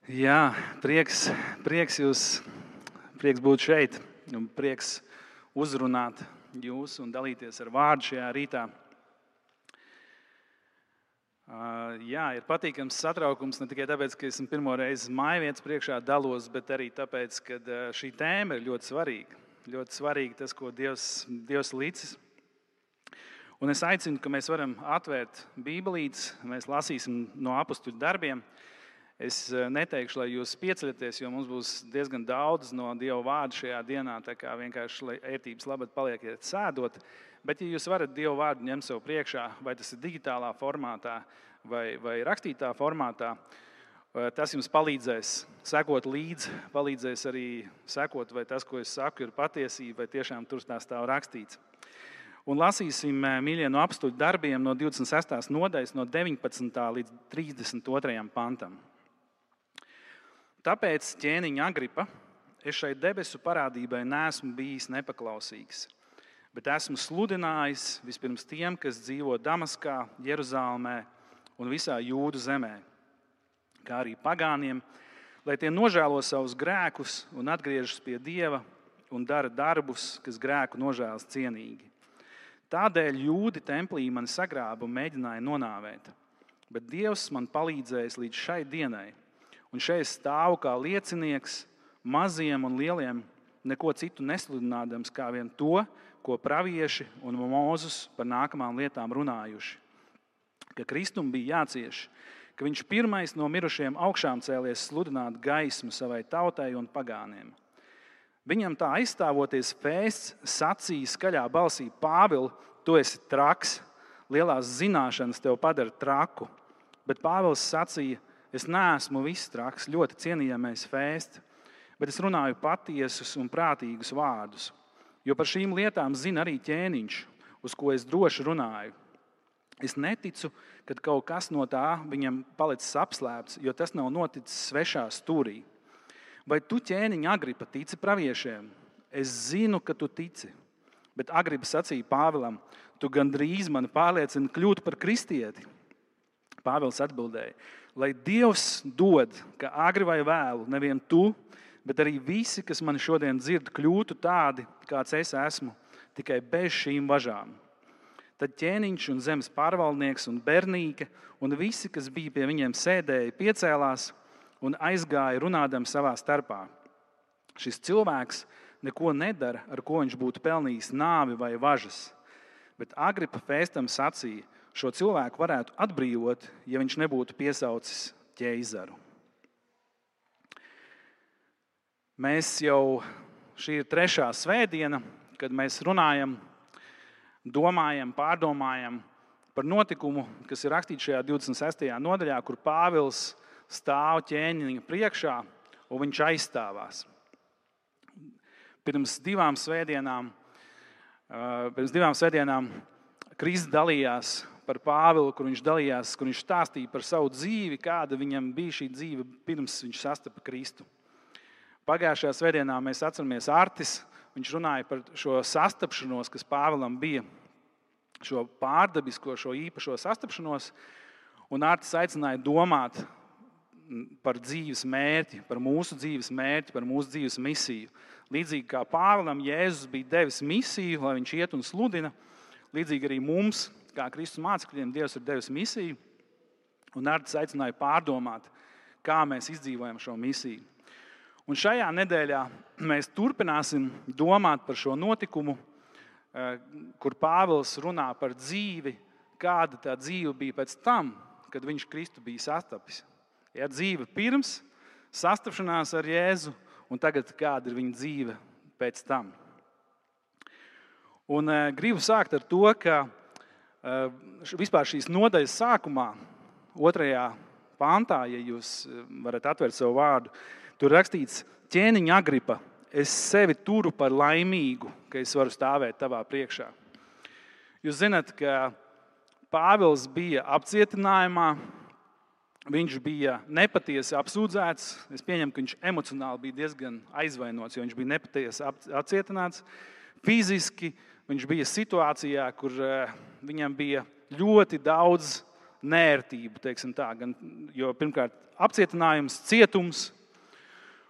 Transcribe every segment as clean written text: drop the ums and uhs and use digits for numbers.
Jā, prieks būt šeit un prieks uzrunāt jūs un dalīties ar vārdu šajā rītā. Jā, ir patīkams satraukums ne tikai tāpēc, ka esmu pirmo reizi mājvietas priekšā dalos, bet arī tāpēc, ka šī tēma ir ļoti svarīga. Ļoti svarīgi tas, ko Dievs licis. Un es aicinu, ka mēs varam atvērt Bībelītes, mēs lasīsim no apustuļu darbiem. Es neteikšu, lai jūs pieceļaties, jo mums būs diezgan daudz no Dieva vārda šajā dienā, tā kā vienkārši, lai ērtības labad paliekiet sēdot. Bet, ja jūs varat Dieva vārdu ņemt sev priekšā, vai tas ir digitālā formātā vai rakstītā formātā, tas jums palīdzēs sekot līdzi, palīdzēs arī sekot, vai tas, ko es saku, ir patiesība, vai tiešām tur tā stāv rakstīts. Un lasīsim, mīļie, no apustuļu darbiem no 26. nodaļas, no 19. līdz 32. pantam. Tāpēc, ķēniņa Agripa, es šai debesu parādībai neesmu bijis nepaklausīgs, bet esmu sludinājis vispirms tiem, kas dzīvo Damaskā, Jeruzālēmē un visā Jūdu zemē, kā arī pagāniem, lai tie nožēlo savus grēkus un atgriežas pie Dieva un dara darbus, kas grēku nožēlas cienīgi. Tādēļ Jūdi templī mani sagrāba un mēģināja nonāvēt, bet Dievs man palīdzējis līdz šai dienai. Un šeit stāvu kā liecinieks maziem un lieliem, neko citu nesludinādams, kā vien to, ko pravieši un Mūzes par nākamām lietām runājuši. Ka Kristum bija jācieš, ka viņš pirmais no mirušiem augšām cēlies sludināt gaismu savai tautai un pagāniem. Viņam tā aizstāvoties Fēsts sacīja skaļā balsī: Pāvili, tu esi traks, lielās zināšanas tev padara traku. Bet Pāvils sacīja: es neesmu viss traks, ļoti cienījamais Fēst, bet es runāju patiesus un prātīgus vārdus. Jo par šīm lietām zina arī ķēniņš, uz ko es droši runāju. Es neticu, ka kaut kas no tā viņam palicis apslēpts, jo tas nav noticis svešā stūrī. Vai tu, ķēniņa Agripa, tici praviešiem? Es zinu, ka tu tici. Bet Agripa sacīja Pāvilam: tu gandrīz mani pārliecini kļūt par kristieti. Pāvils atbildēja: lai Dievs dod, ka agri vai vēlu, nevien tu, bet arī visi, kas mani šodien dzird, kļūtu tādi, kāds es esmu, tikai bez šīm važām. Tad ķēniņš un zemes pārvaldnieks un Bernīke un visi, kas bija pie viņiem sēdēja, piecēlās un aizgāja runādam savā starpā. Šis cilvēks neko nedara, ar ko viņš būtu pelnījis nāvi vai važas. Bet Agripa Fēstam sacīja: šo cilvēku varētu atbrīvot, ja viņš nebūtu piesaucis ķeizaru. Šī ir 3. svētdiena, kad mēs runājam, domājam, pārdomājam par notikumu, kas ir rakstīts šajā 26. nodaļā, kur Pāvils stāv ķēniņa priekšā un viņš aizstāvās. Pirms divām svētdienām Kristus dalījās par Pāvilu, kur viņš stāstīja par savu dzīvi, kāda viņam bija šī dzīve pirms viņš sastapa Kristu. Pagājušajā svētdienā mēs atceramies Artis, viņš runāja par šo sastapšanos, kas Pāvilam bija, šo pārdabisko, šo īpašo sastapšanos, un Artis aicināja domāt par dzīves mērķi, par mūsu dzīves mērķi, par mūsu dzīves misiju. Līdzīgi kā Pāvilam Jēzus bija devis misiju, lai viņš iet un sludina, līdzīgi arī mums, kā Kristus mācekļiem, Dievs ir devis misiju, un Artis aicināja pārdomāt, kā mēs izdzīvojam šo misiju. Un šajā nedēļā mēs turpināsim domāt par šo notikumu, kur Pāvils runā par dzīvi, kāda tā dzīve bija pēc tam, kad viņš Kristu bija sastapis. Ja dzīve pirms sastapšanās ar Jēzu, un tagad kāda ir viņa dzīve pēc tam. Un gribu sākt ar to, ka vispār šīs nodaļas sākumā, 2. pantā, ja jūs varat atvērt savu vārdu, tur rakstīts: ķēniņa Agripa, es sevi turu par laimīgu, ka es varu stāvēt tavā priekšā. Jūs zināt, ka Pāvils bija apcietinājumā, viņš bija nepatiesi apsūdzēts. Es pieņemu, ka viņš emocionāli bija diezgan aizvainots, jo viņš bija nepatiesi apcietināts. Fiziski viņš bija situācijā, kur viņam bija ļoti daudz nērtību, teiksim tā. Jo pirmkārt apcietinājums, cietums,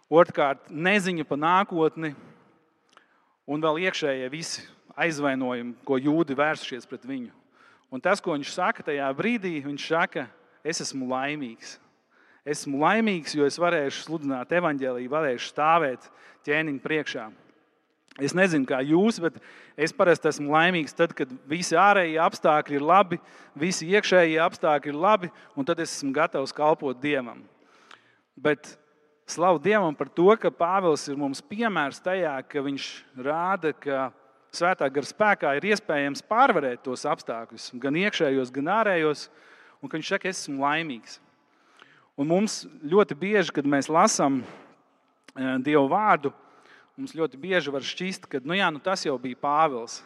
otrkārt neziņa par nākotni un vēl iekšējie visi aizvainojumi, ko jūdi vērsušies pret viņu. Un tas, ko viņš saka tajā brīdī, viņš saka, es esmu laimīgs. Esmu laimīgs, jo es varēšu sludināt evaņģēliju, varēšu stāvēt ķēniņa priekšā. Es nezinu, kā jūs, bet es parasti esmu laimīgs tad, kad visi ārējie apstākļi ir labi, visi iekšējie apstākļi ir labi, un tad es esmu gatavs kalpot Dievam. Bet slavu Dievam par to, ka Pāvils ir mums piemērs tajā, ka viņš rāda, ka Svētā gara spēkā ir iespējams pārvarēt tos apstākļus, gan iekšējos, gan ārējos, un ka viņš saka, es esmu laimīgs. Un mums ļoti bieži, kad mēs lasām Dievu vārdu, mums ļoti bieži var šķist, ka tas jau bija Pāvils.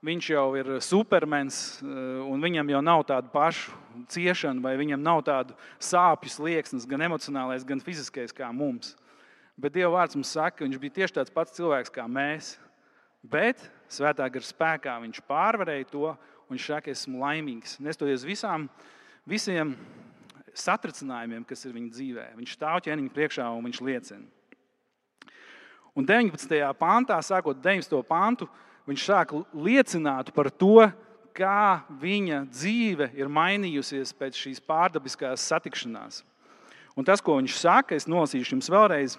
Viņš jau ir supermens, un viņam jau nav tādu pašu ciešanu, vai viņam nav tādu sāpju slieksnes, gan emocionālais, gan fiziskais kā mums. Bet Dieva vārds mums saka, ka viņš bija tieši tāds pats cilvēks kā mēs. Bet Svētā gara spēkā viņš pārvarēja to, un viņš saka, esmu laimīgs. Nestoties visiem satricinājumiem, kas ir viņa dzīvē. Viņš stāv ķēniņa priekšā un viņš liecina. Un 19. pantā, sākot 19. pantu, viņš sāk liecināt par to, kā viņa dzīve ir mainījusies pēc šīs pārdabiskās satikšanās. Un tas, ko viņš saka, es nolasīšu jums vēlreiz.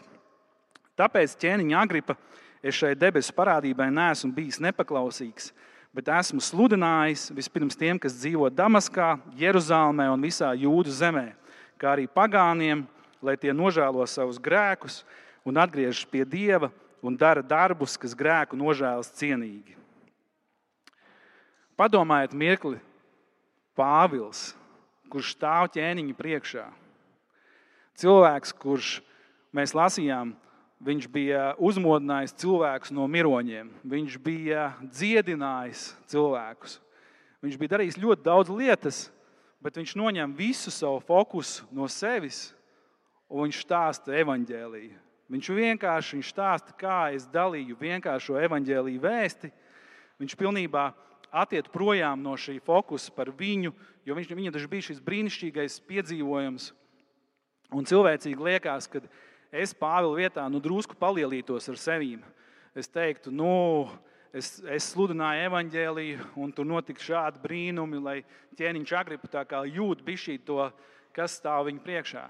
Tāpēc, ķēniņa Agripa, es šai debesu parādībai neesmu bijis nepaklausīgs, bet esmu sludinājis vispirms tiem, kas dzīvo Damaskā, Jeruzālmē un visā Jūdu zemē, kā arī pagāniem, lai tie nožēlo savus grēkus un atgriežas pie Dieva un dara darbus, kas grēku nožēlas cienīgi. Padomājiet mirkli, Pāvils, kurš stāv ķēniņa priekšā. Cilvēks, kurš mēs lasījām, viņš bija uzmodinājis cilvēkus no miroņiem. Viņš bija dziedinājis cilvēkus. Viņš bija darījis ļoti daudz lietas, bet viņš noņem visu savu fokusu no sevis un viņš stāsta evaņģēliju. Viņš vienkārši stāsta, kā es dalīju vienkāršo evaņģēliju vēsti. Viņš pilnībā attiet projām no šī fokusa par viņu, jo viņam taču bija šis brīnišķīgais piedzīvojums. Un cilvēcīgi liekas, ka es Pāvila vietā drusku palielītos ar sevīm. Es teiktu, es sludināju evaņģēliju, un tur notika šādi brīnumi, lai ķēniņš Agripa tā kā jūt bišķīt to, kas stāv viņa priekšā.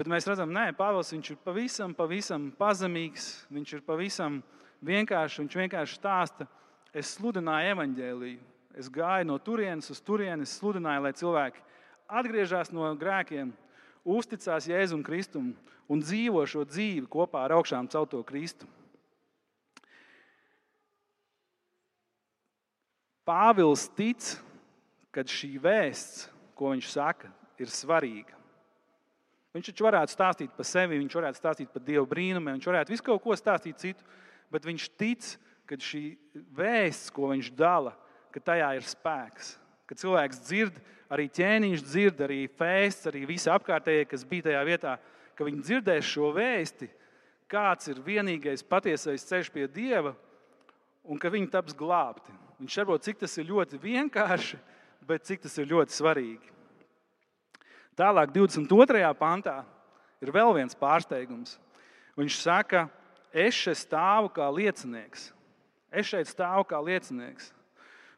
Bet mēs redzam, Pāvils viņš ir pavisam pazemīgs, viņš ir pavisam vienkārši, viņš vienkārši stāsta, es sludināju evaņģēliju, es gāju no turienes uz turieni, es sludināju, lai cilvēki atgriežas no grēkiem, uzticās Jēzum Kristum un dzīvo šo dzīvi kopā ar augšām celto Kristu. Pāvils tic, ka šī vēsts, ko viņš saka, ir svarīga. Viņš taču varētu stāstīt par sevi, viņš varētu stāstīt par Dievu brīnumiem, viņš varētu visu kaut ko stāstīt citu, bet viņš tic, ka šī vēsts, ko viņš dala, ka tajā ir spēks. Ka cilvēks dzird, arī ķēniņš dzird, arī Fēsts, arī visi apkārtējie, kas bija tajā vietā, ka viņi dzirdēs šo vēsti, kāds ir vienīgais patiesais ceļš pie Dieva un ka viņi taps glābti. Viņš saprot, cik tas ir ļoti vienkārši, bet cik tas ir ļoti svarīgi. Tālāk 22. pantā ir vēl viens pārsteigums. Viņš saka, es šeit stāvu kā liecinieks. Es šeit stāvu kā liecinieks.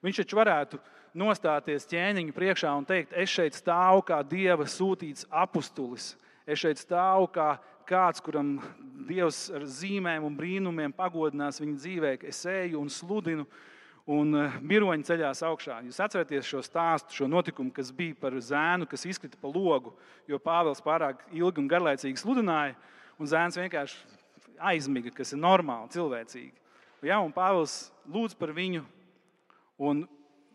Viņš taču varētu nostāties ķēniņa priekšā un teikt, es šeit stāvu kā Dieva sūtīts apustulis. Es šeit stāvu kā kāds, kuram Dievs ar zīmēm un brīnumiem pagodinās viņa dzīvē. Es eju un sludinu un miroņi ceļās augšā. Jūs atceraties šo stāstu, šo notikumu, kas bija par zēnu, kas izkrita pa logu, jo Pāvils pārāk ilgi un garlaicīgi sludināja, un zēns vienkārši aizmiga, kas ir normāli, cilvēcīgi. Ja, un Pāvils lūdz par viņu, un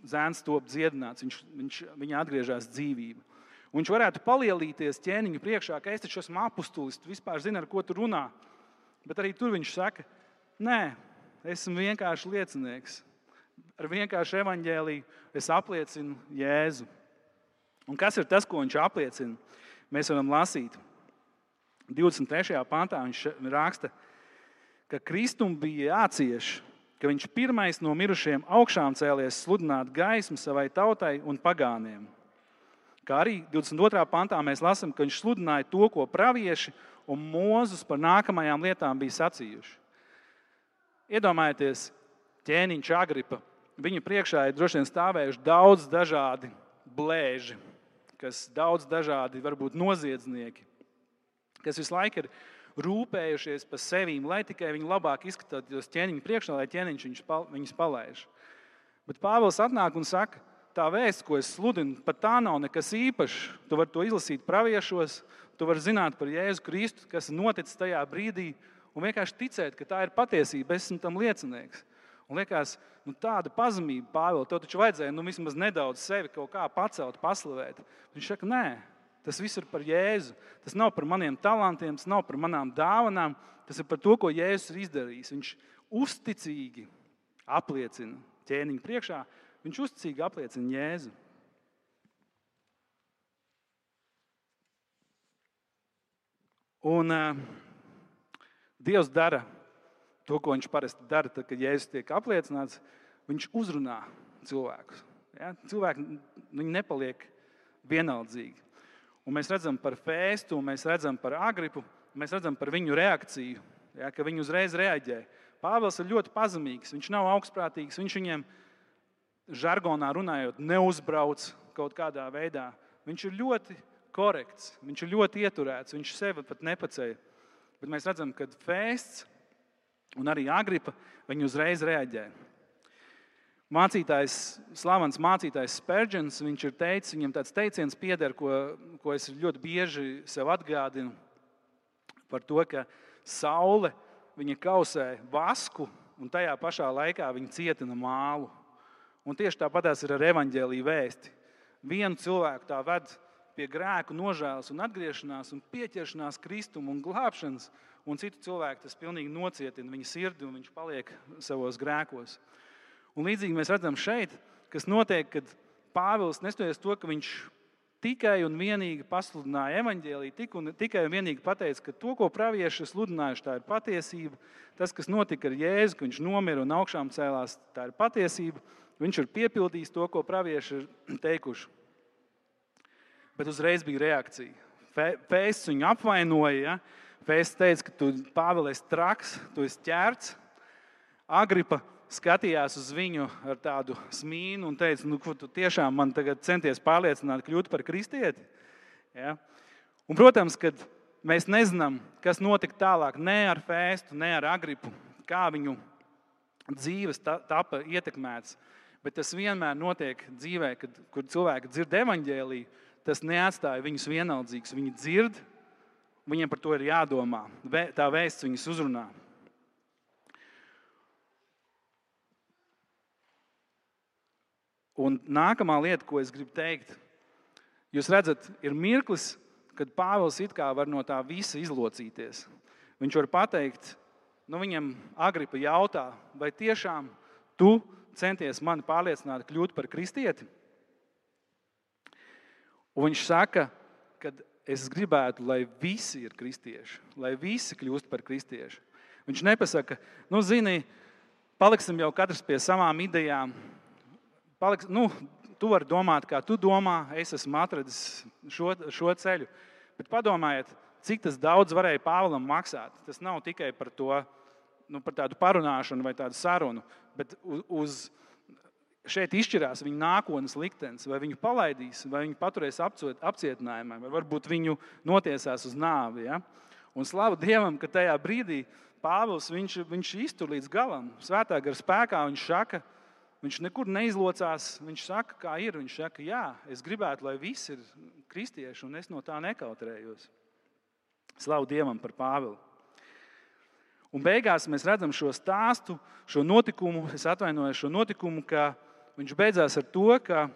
zēns top dziedināts, viņa atgriežas dzīvība. Un viņš varētu palielīties ķēniņu priekšā, ka es taču esmu apustulis, tu vispār zini, ar ko tu runā. Bet arī tur viņš saka, nē, esmu vienkārši liecinieks. Ar vienkāršu evaņģēliju es apliecinu Jēzu. Un kas ir tas, ko viņš apliecina? Mēs varam lasīt. 23. pantā viņš raksta, ka Kristum bija jācieš, ka viņš pirmais no mirušiem augšām cēlies sludināt gaismu savai tautai un pagāniem. Kā arī 22. pantā mēs lasām, ka viņš sludināja to, ko pravieši un Mūzes par nākamajām lietām bija sacījuši. Iedomājieties, ķēniņš Agripa. Viņa priekšā ir droši vien stāvējuši daudz dažādi blēži, kas daudz dažādi varbūt noziedznieki, kas visu laiku ir rūpējušies par sevīm, lai tikai viņi labāk izskatītos ķēniņu priekšā, lai ķēniņš viņus palaiž. Bet Pāvils atnāk un saka, tā vēsts, ko es sludinu, pat tā nav nekas īpašs. Tu vari to izlasīt praviešos, tu vari zināt par Jēzu Kristu, kas ir noticis tajā brīdī, un vienkārši ticēt, ka tā ir patiesība, es esmu tam liecinieks. Un liekas, tāda pazemība, Pāvils, tev taču vajadzēja vismaz nedaudz sevi kaut kā pacelt, paslavēt. Viņš saka, nē, tas viss ir par Jēzu. Tas nav par maniem talantiem, tas nav par manām dāvanām, tas ir par to, ko Jēzus ir izdarījis. Viņš uzticīgi apliecina ķēniņu priekšā, viņš uzticīgi apliecina Jēzu. Un Dievs dara to, ko viņš parasti dara, tad, kad Jēzus tiek apliecināts, viņš uzrunā cilvēkus. Ja? Cilvēki viņi nepaliek vienaldzīgi. Un mēs redzam par Fēstu, mēs redzam par Agripu, mēs redzam par viņu reakciju, ja? Ka viņi uzreiz reaģē. Pāvils ir ļoti pazemīgs, viņš nav augstprātīgs, viņš viņiem žargonā runājot neuzbrauc kaut kādā veidā. Viņš ir ļoti korekts, viņš ir ļoti ieturēts, viņš sevi pat nepaceļ. Bet mēs redzam, ka Fēsts un arī Agripa, viņi uzreiz reaģē. Slavens mācītājs Spurgeons, viņš ir teicis, viņam tāds teiciens pieder, ko es ļoti bieži sev atgādinu par to, ka saule, viņa kausē vasku un tajā pašā laikā viņa cietina mālu. Un tieši tāpatās ir ar evaņģēliju vēsti. Vienu cilvēku tā ved pie grēku nožēlas un atgriešanās un pieķeršanās Kristumu un glābšanas, un citu cilvēku tas pilnīgi nocietina viņa sirdi un viņš paliek savos grēkos. Un līdzīgi mēs redzam šeit, kas notiek, kad Pāvils nestoties to, ka viņš tikai un vienīgi pasludināja evaņģēliju, tikai un vienīgi pateica, ka to, ko pravieši sludinājuši, tā ir patiesība. Tas, kas notika ar Jēzu, ka viņš nomira un augšām cēlās, tā ir patiesība. Viņš ir piepildījis to, ko pravieši ir teikuši. Bet uzreiz bija reakcija. Fēsts viņu apvainoja. Ja? Fēsts teica, ka tu, Pāvils, esi traks, tu esi ķērts. Agripa skatījās uz viņu ar tādu smīnu un teica, ko tu tiešām man tagad centies pārliecināt, kļūt par kristieti. Ja? Un, protams, kad mēs nezinām, kas notika tālāk ne ar Fēstu, ne ar Agripu, kā viņu dzīves tapa ietekmēts. Bet tas vienmēr notiek dzīvē, kur cilvēki dzird evaņģēliju, tas neatstāja viņus vienaldzīgus. Viņi dzird, viņiem par to ir jādomā. Tā vēsts viņus uzrunā. Un nākamā lieta, ko es gribu teikt, jūs redzat, ir mirklis, kad Pāvils it kā var no tā visa izlocīties. Viņš var pateikt, viņam Agripa jautā, vai tiešām tu centies mani pārliecināt kļūt par kristieti? Un viņš saka, ka es gribētu, lai visi ir kristieši, lai visi kļūst par kristieši. Viņš nepasaka, zini, paliksim jau katrs pie savām idejām. Tu vari domāt, kā tu domā, es esmu atradis šo ceļu. Bet padomājiet, cik tas daudz varēja Pāvilam maksāt. Tas nav tikai par to, par tādu parunāšanu vai tādu sarunu, bet šeit izšķirās viņa nākotnes liktenis, vai viņu palaidīs, vai viņu paturēs apcietinājumā, vai varbūt viņu notiesās uz nāvi. Ja? Un slavu Dievam, ka tajā brīdī Pāvils viņš iztur līdz galam. Svētā gara spēkā viņš nekur neizlocās, viņš saka, kā ir. Viņš saka, jā, es gribētu, lai visi ir kristieši, un es no tā nekautrējos. Slavu Dievam par Pāvilu. Un beigās mēs redzam šo stāstu, šo notikumu, ka viņš beidzās ar to, ka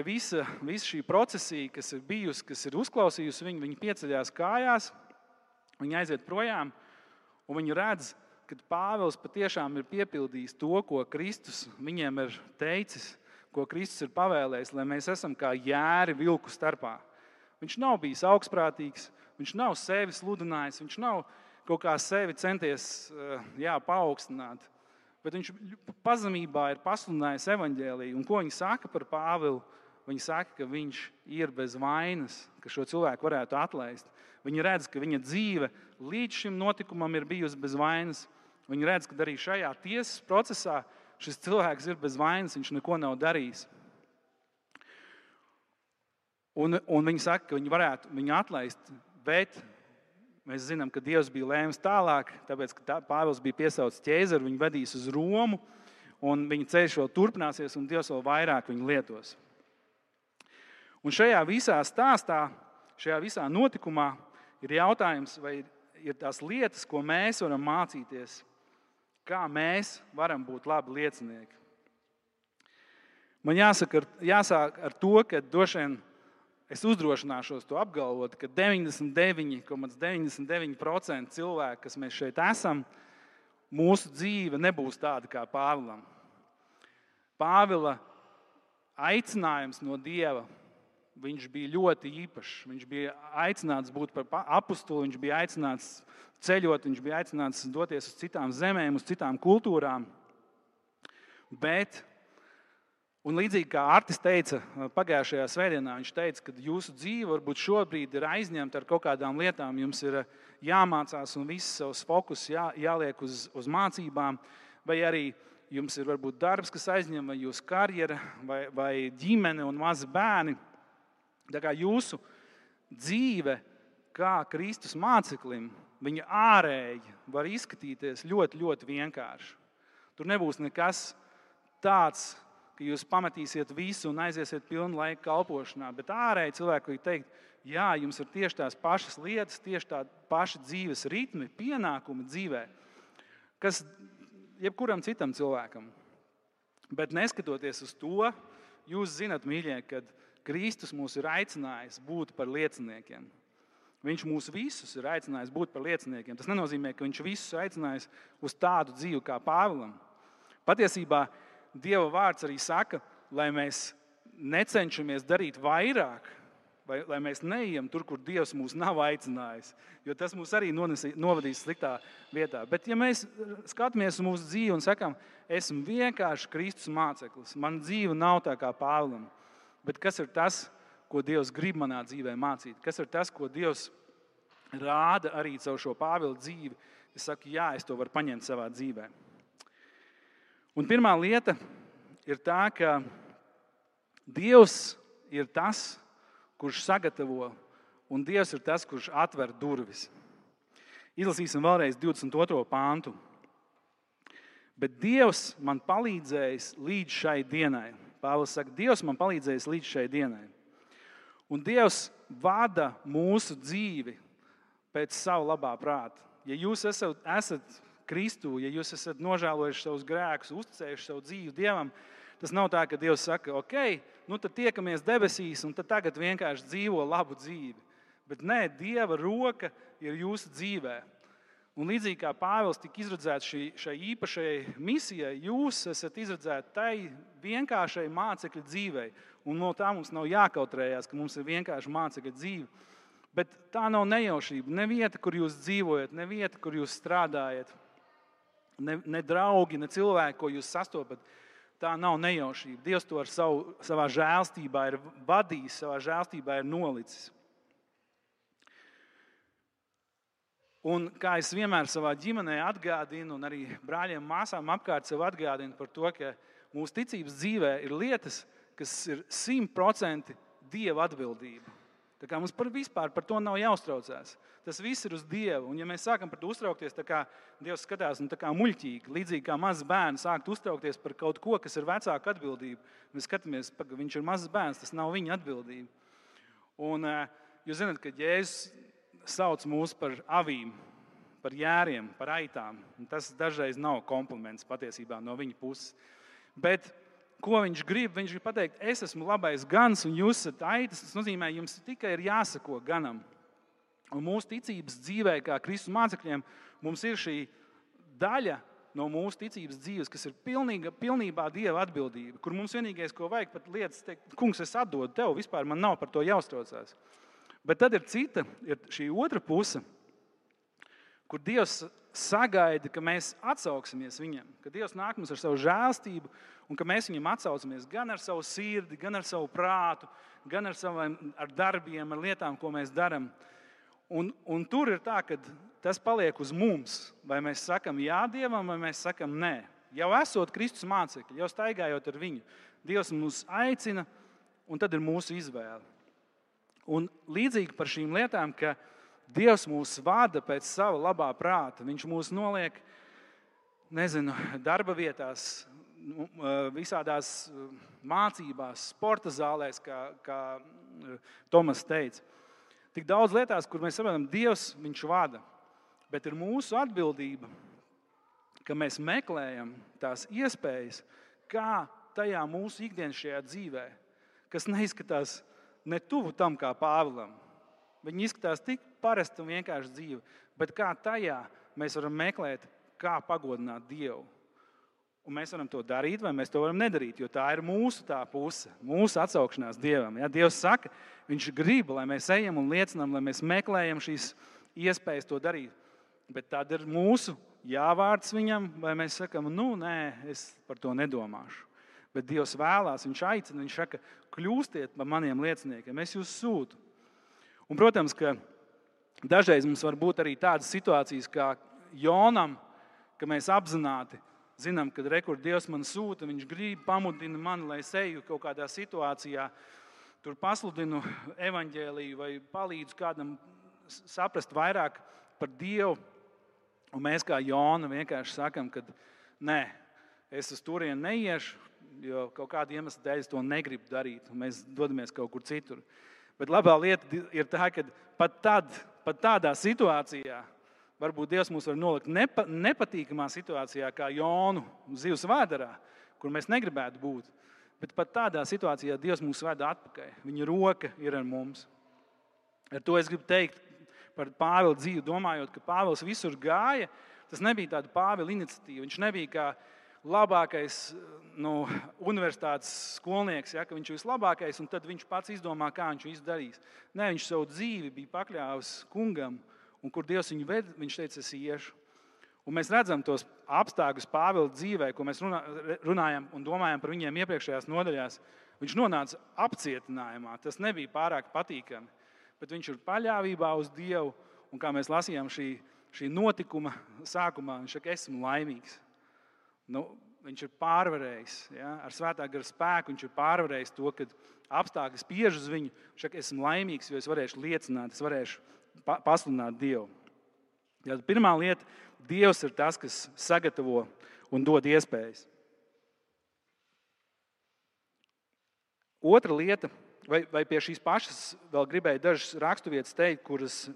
visa šī procesija, kas ir bijusi, kas ir uzklausījusi viņu, viņi pieceļās kājās, viņi aiziet projām, un viņi redz, kad Pāvils patiešām ir piepildījis to, ko Kristus viņiem ir teicis, ko Kristus ir pavēlējis, lai mēs esam kā jēri vilku starpā. Viņš nav bijis augstprātīgs, viņš nav sevi sludinājis, viņš nav kaut kā sevi centies paaugstināt, bet viņš pazemībā ir pasludinājis evaņģēliju. Un ko viņi saka par Pāvilu? viņi saka, ka viņš ir bez vainas, ka šo cilvēku varētu atlaist. Viņi redz, ka viņa dzīve līdz šim notikumam ir bijusi bez vainas. Viņi redz, ka arī šajā tiesas procesā šis cilvēks ir bez vainas, viņš neko nav darījis. Un viņi saka, ka viņi varētu viņu atlaist, bet mēs zinām, ka Dievs bija lēmis tālāk, tāpēc, ka Pāvils bija piesaucis ķēzaru, viņu vedīs uz Romu, un viņa ceļš vēl turpināsies, un Dievs vēl vairāk viņu lietos. Un šajā visā stāstā, šajā visā notikumā ir jautājums, vai ir tās lietas, ko mēs varam mācīties, kā mēs varam būt labi liecinieki. Man jāsāk ar to, ka droši vien es uzdrošināšos to apgalvot, ka 99,99% cilvēku, kas mēs šeit esam, mūsu dzīve nebūs tāda kā Pāvilam. Pāvila aicinājums no Dieva, viņš bija ļoti īpašs. Viņš bija aicināts būt par apustuli, viņš bija aicināts ceļot, viņš bija aicināts doties uz citām zemēm, uz citām kultūrām. Un līdzīgi kā Artis teica pagājušajā svētdienā, viņš teica, ka jūsu dzīve varbūt šobrīd ir aizņemta ar kaut kādām lietām, jums ir jāmācās un viss savs fokus jāliek uz mācībām, vai arī jums ir varbūt darbs, kas aizņem, vai jūsu karjera, vai ģimene un mazi bērni. Tā kā jūsu dzīve kā Kristus māceklim, viņa ārēji var izskatīties ļoti, ļoti vienkārši. Tur nebūs nekas tāds, ka jūs pametīsiet visu un aiziesiet pilnu laiku kalpošanā, bet ārēji cilvēki var teikt, jā, jums ir tieši tās pašas lietas, tieši tā paši dzīves ritmi, pienākumi dzīvē, kas jebkuram citam cilvēkam. Bet neskatoties uz to, jūs zinat, mīļie, kad Kristus mūs ir aicinājis būt par lieciniekiem. Viņš mūs visus ir aicinājis būt par lieciniekiem. Tas nenozīmē, ka viņš visus aicinājis uz tādu dzīvi kā Pāvilam. Patiesībā Dieva vārds arī saka, lai mēs necenšamies darīt vairāk, vai lai mēs neejam tur, kur Dievs mūs nav aicinājis, jo tas mūs arī novadīs sliktā vietā. Bet ja mēs skatāmies uz mūsu dzīvi un sakam, esmu vienkārši Kristus māceklis, man dzīve nav tā kā Pāvilam, bet kas ir tas, ko Dievs grib manā dzīvē mācīt? Kas ir tas, ko Dievs rāda arī caur šo Pāvila dzīvi? Es saku, jā, es to varu paņemt savā dzīvē. Un pirmā lieta ir tā, ka Dievs ir tas, kurš sagatavo, un Dievs ir tas, kurš atver durvis. Izlasīsim vēlreiz 22. pāntu. Bet Dievs man palīdzējis līdz šai dienai. Pāvils saka, Dievs man palīdzējis līdz šai dienai. Un Dievs vada mūsu dzīvi pēc savu labā prāta. Ja jūs esat Kristu, ja jūs esat nožēlojuši savus grēkus, uzticējuši savu dzīvi Dievam, tas nav tā, ka Dievs saka, ok, nu tad tiekamies debesīs un tad tagad vienkārši dzīvo labu dzīvi. Bet nē, Dieva roka ir jūsu dzīvē. Un līdzīgi kā Pāvils tika izredzēts šai īpašai misijai, jūs esat izredzēti tai vienkāršai mācekļa dzīvei. Un no tā mums nav jākautrējās, ka mums ir vienkārši mācekļa dzīve. Bet tā nav nejaušība. Ne vieta, kur jūs dzīvojat, ne vieta, kur jūs strādājat, ne draugi, ne cilvēki, ko jūs sastopat. Tā nav nejaušība. Dievs to ar savā žēlstībā ir vadījis, savā žēlstībā ir nolicis. Un kā es vienmēr savā ģimenē atgādinu, un arī brāļiem, māsām apkārt sev atgādinu par to, ka mūsu ticības dzīvē ir lietas, kas ir 100% Dieva atbildība. Tā kā mums vispār par to nav jāuztraucās. Tas viss ir uz Dievu. Un ja mēs sākam par to uztraukties, tā kā Dievs skatās tā kā muļķīgi, līdzīgi kā mazs bērns sākt uztraukties par kaut ko, kas ir vecāka atbildība. Mēs skatāmies, ka viņš ir mazs bērns, tas nav viņa atbildība. Un jūs zināt, ka Jēzus sauc mūs par avīm, par jēriem, par aitām. Un tas dažreiz nav kompliments patiesībā no viņa puses. Bet ko viņš grib? Viņš grib pateikt, es esmu labais gans un jūs esat aitas. Tas nozīmē, jums tikai ir jāsako ganam. Un mūsu ticības dzīvē, kā Kristus mācekļiem, mums ir šī daļa no mūsu ticības dzīves, kas ir pilnībā Dieva atbildība, kur mums vienīgais, ko vajag pat lietas teikt, kungs, es atdodu tev, vispār man nav par to jāuztraucās. Bet tad ir šī otra puse, kur Dievs sagaida, ka mēs atsauksimies viņam, ka Dievs nāk mums ar savu žēlstību un ka mēs viņam atsaucamies gan ar savu sirdi, gan ar savu prātu, gan ar darbiem, ar lietām, ko mēs darām. Un tur ir tā, ka tas paliek uz mums. Vai mēs sakam jā Dievam, vai mēs sakam nē. Jau esot Kristus mācekļi, jau staigājot ar viņu, Dievs mūs aicina, un tad ir mūsu izvēle. Un līdzīgi par šīm lietām, ka Dievs mūs vada pēc sava labā prāta. Viņš mūs noliek, darba vietās, visādās mācībās, sporta zālēs, kā Tomas teica. Tik daudz lietās, kur mēs saprotam, Dievs viņš vada. Bet ir mūsu atbildība, ka mēs meklējam tās iespējas, kā tajā mūsu ikdienas šajā dzīvē, kas neizskatās ne tuvu tam kā Pāvilam. Viņi izskatās tik parasti un vienkārši dzīve, bet kā tajā mēs varam meklēt, kā pagodināt Dievu. Un mēs varam to darīt, vai mēs to varam nedarīt, jo tā ir mūsu tā puse, mūsu atsaukšanās Dievam. Ja? Dievs saka, viņš grib, lai mēs ejam un liecinām, lai mēs meklējam šīs iespējas to darīt. Bet tad ir mūsu jāvārds viņam, vai mēs sakam, nē, es par to nedomāšu. Bet Dievs vēlās, viņš aicina, viņš saka, kļūstiet par maniem lieciniekiem, es jūs sūtu. Un, protams, ka dažreiz mums var būt arī tādas situācijas kā Jonam, ka mēs apzināti zinām, ka rekur Dievs man sūta, viņš grib pamudina mani, lai es eju kaut kādā situācijā, tur pasludinu evaņģēliju vai palīdzu kādam saprast vairāk par Dievu. Un mēs kā Jona vienkārši sakam, ka nē, es uz turieni neiešu, jo kaut kāda iemesla dēļ es to negribu darīt, un mēs dodamies kaut kur citur. Bet labā lieta ir tā, ka pat tādā situācijā, varbūt Dievs mūs var nolikt nepatīkamā situācijā, kā Jonu zivs vēderā, kur mēs negribētu būt. Bet pat tādā situācijā Dievs mūs veda atpakaļ. Viņa roka ir ar mums. Ar to es gribu teikt par Pāvila dzīvi, domājot, ka Pāvils visur gāja. Tas nebija tāda Pāvila iniciatīva. Viņš nebija kā labākais universitātes skolnieks, ja, ka viņš ir vislabākais, un tad viņš pats izdomā, kā viņš visu darīs. Nē, viņš savu dzīvi bija pakļāvis kungam, un kur Dievs viņu ved, viņš teica, es iešu. Un mēs redzam tos apstākļus Pāvila dzīvē, ko mēs runājam un domājam par viņiem iepriekšējās nodaļās. Viņš nonāca apcietinājumā, tas nebija pārāk patīkami, bet viņš ir paļāvībā uz Dievu, un kā mēs lasījām šī notikuma sākumā, viņš saka, esmu laimīgs. Viņš ir pārvarējis, ja? Ar svētā gara spēku viņš ir pārvarējis to, kad apstākļi spiež uz viņu. Viņš saka, esmu laimīgs, jo es varēšu liecināt, es varēšu pasludināt Dievu. Ja, pirmā lieta, Dievs ir tas, kas sagatavo un dod iespējas. Otra lieta, vai pie šīs pašas vēl gribēju dažas raksturvietas teikt, kuras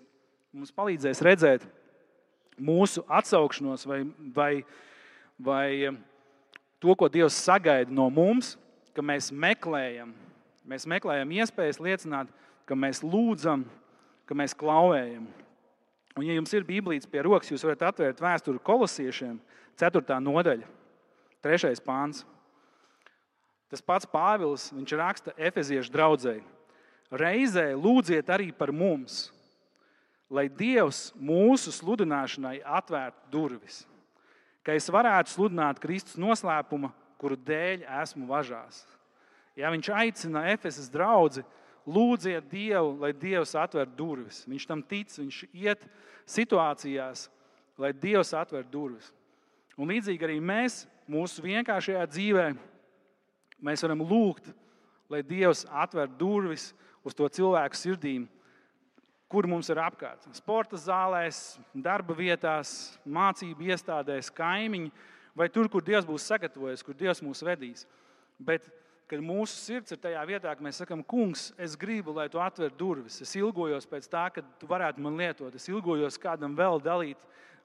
mums palīdzēs redzēt mūsu atsaukšanos vai to, ko Dievs sagaida no mums, ka mēs meklējam iespējas liecināt, ka mēs lūdzam, ka mēs klauvējam. Un, ja jums ir Bībelītes pie rokas, jūs varat atvērt vēsturi Kolosiešiem, 4. nodaļa, 3. pāns. Tas pats Pāvils, viņš raksta Efeziešu draudzei. Reizē lūdziet arī par mums, lai Dievs mūsu sludināšanai atvērtu durvis, ka es varētu sludināt Kristus noslēpuma, kuru dēļ esmu važās. Ja viņš aicina Efesas draudzi, lūdziet Dievu, lai Dievs atver durvis. Viņš tam tic, viņš iet situācijās, lai Dievs atver durvis. Un līdzīgi arī mēs, mūsu vienkāršajā dzīvē, mēs varam lūgt, lai Dievs atver durvis uz to cilvēku sirdīm, kur mums ir apkārt. Sporta zālēs, darba vietās, mācību iestādēs, kaimiņi, vai tur, kur Dievs būs sagatavojis, kur Dievs mūs vedīs. Bet, kad mūsu sirds ir tajā vietā, ka mēs sakam, kungs, es gribu, lai tu atver durvis. Es ilgojos pēc tā, ka tu varētu man lietot. Es ilgojos kādam vēl dalīt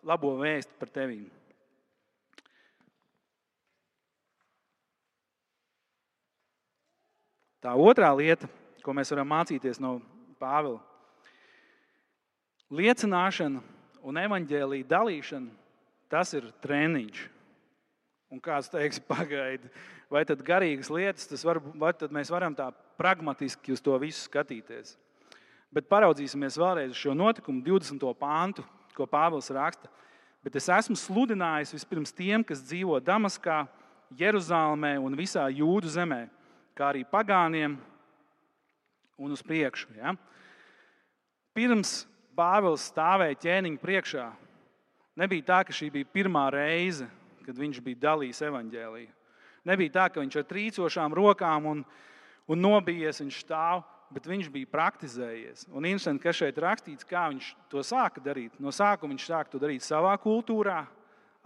labo vēstu par tevīm. Tā otrā lieta, ko mēs varam mācīties no Pāvila. Liecināšana un evaņģēlija dalīšana, tas ir treniņš. Un kāds teiks, pagaidi, vai tad garīgas lietas, vai tad mēs varam tā pragmatiski uz to visu skatīties. Bet paraudzīsimies vēlreiz uz šo notikumu, 20. pāntu, ko Pāvils raksta. bet es esmu sludinājis vispirms tiem, kas dzīvo Damaskā, Jeruzālmē un visā Jūdu zemē, kā arī pagāniem un uz priekšu. Ja? Pirms Pāvils stāvēja ķēniņa priekšā, nebija tā, ka šī bija pirmā reize, kad viņš bija dalījis evaņģēliju. Nebija tā, ka viņš ar trīcošām rokām un nobijies, viņš stāv, bet viņš bija praktizējies. Un interesanti, ka šeit rakstīts, kā viņš to sāka darīt. No sākuma viņš sāka to darīt savā kultūrā,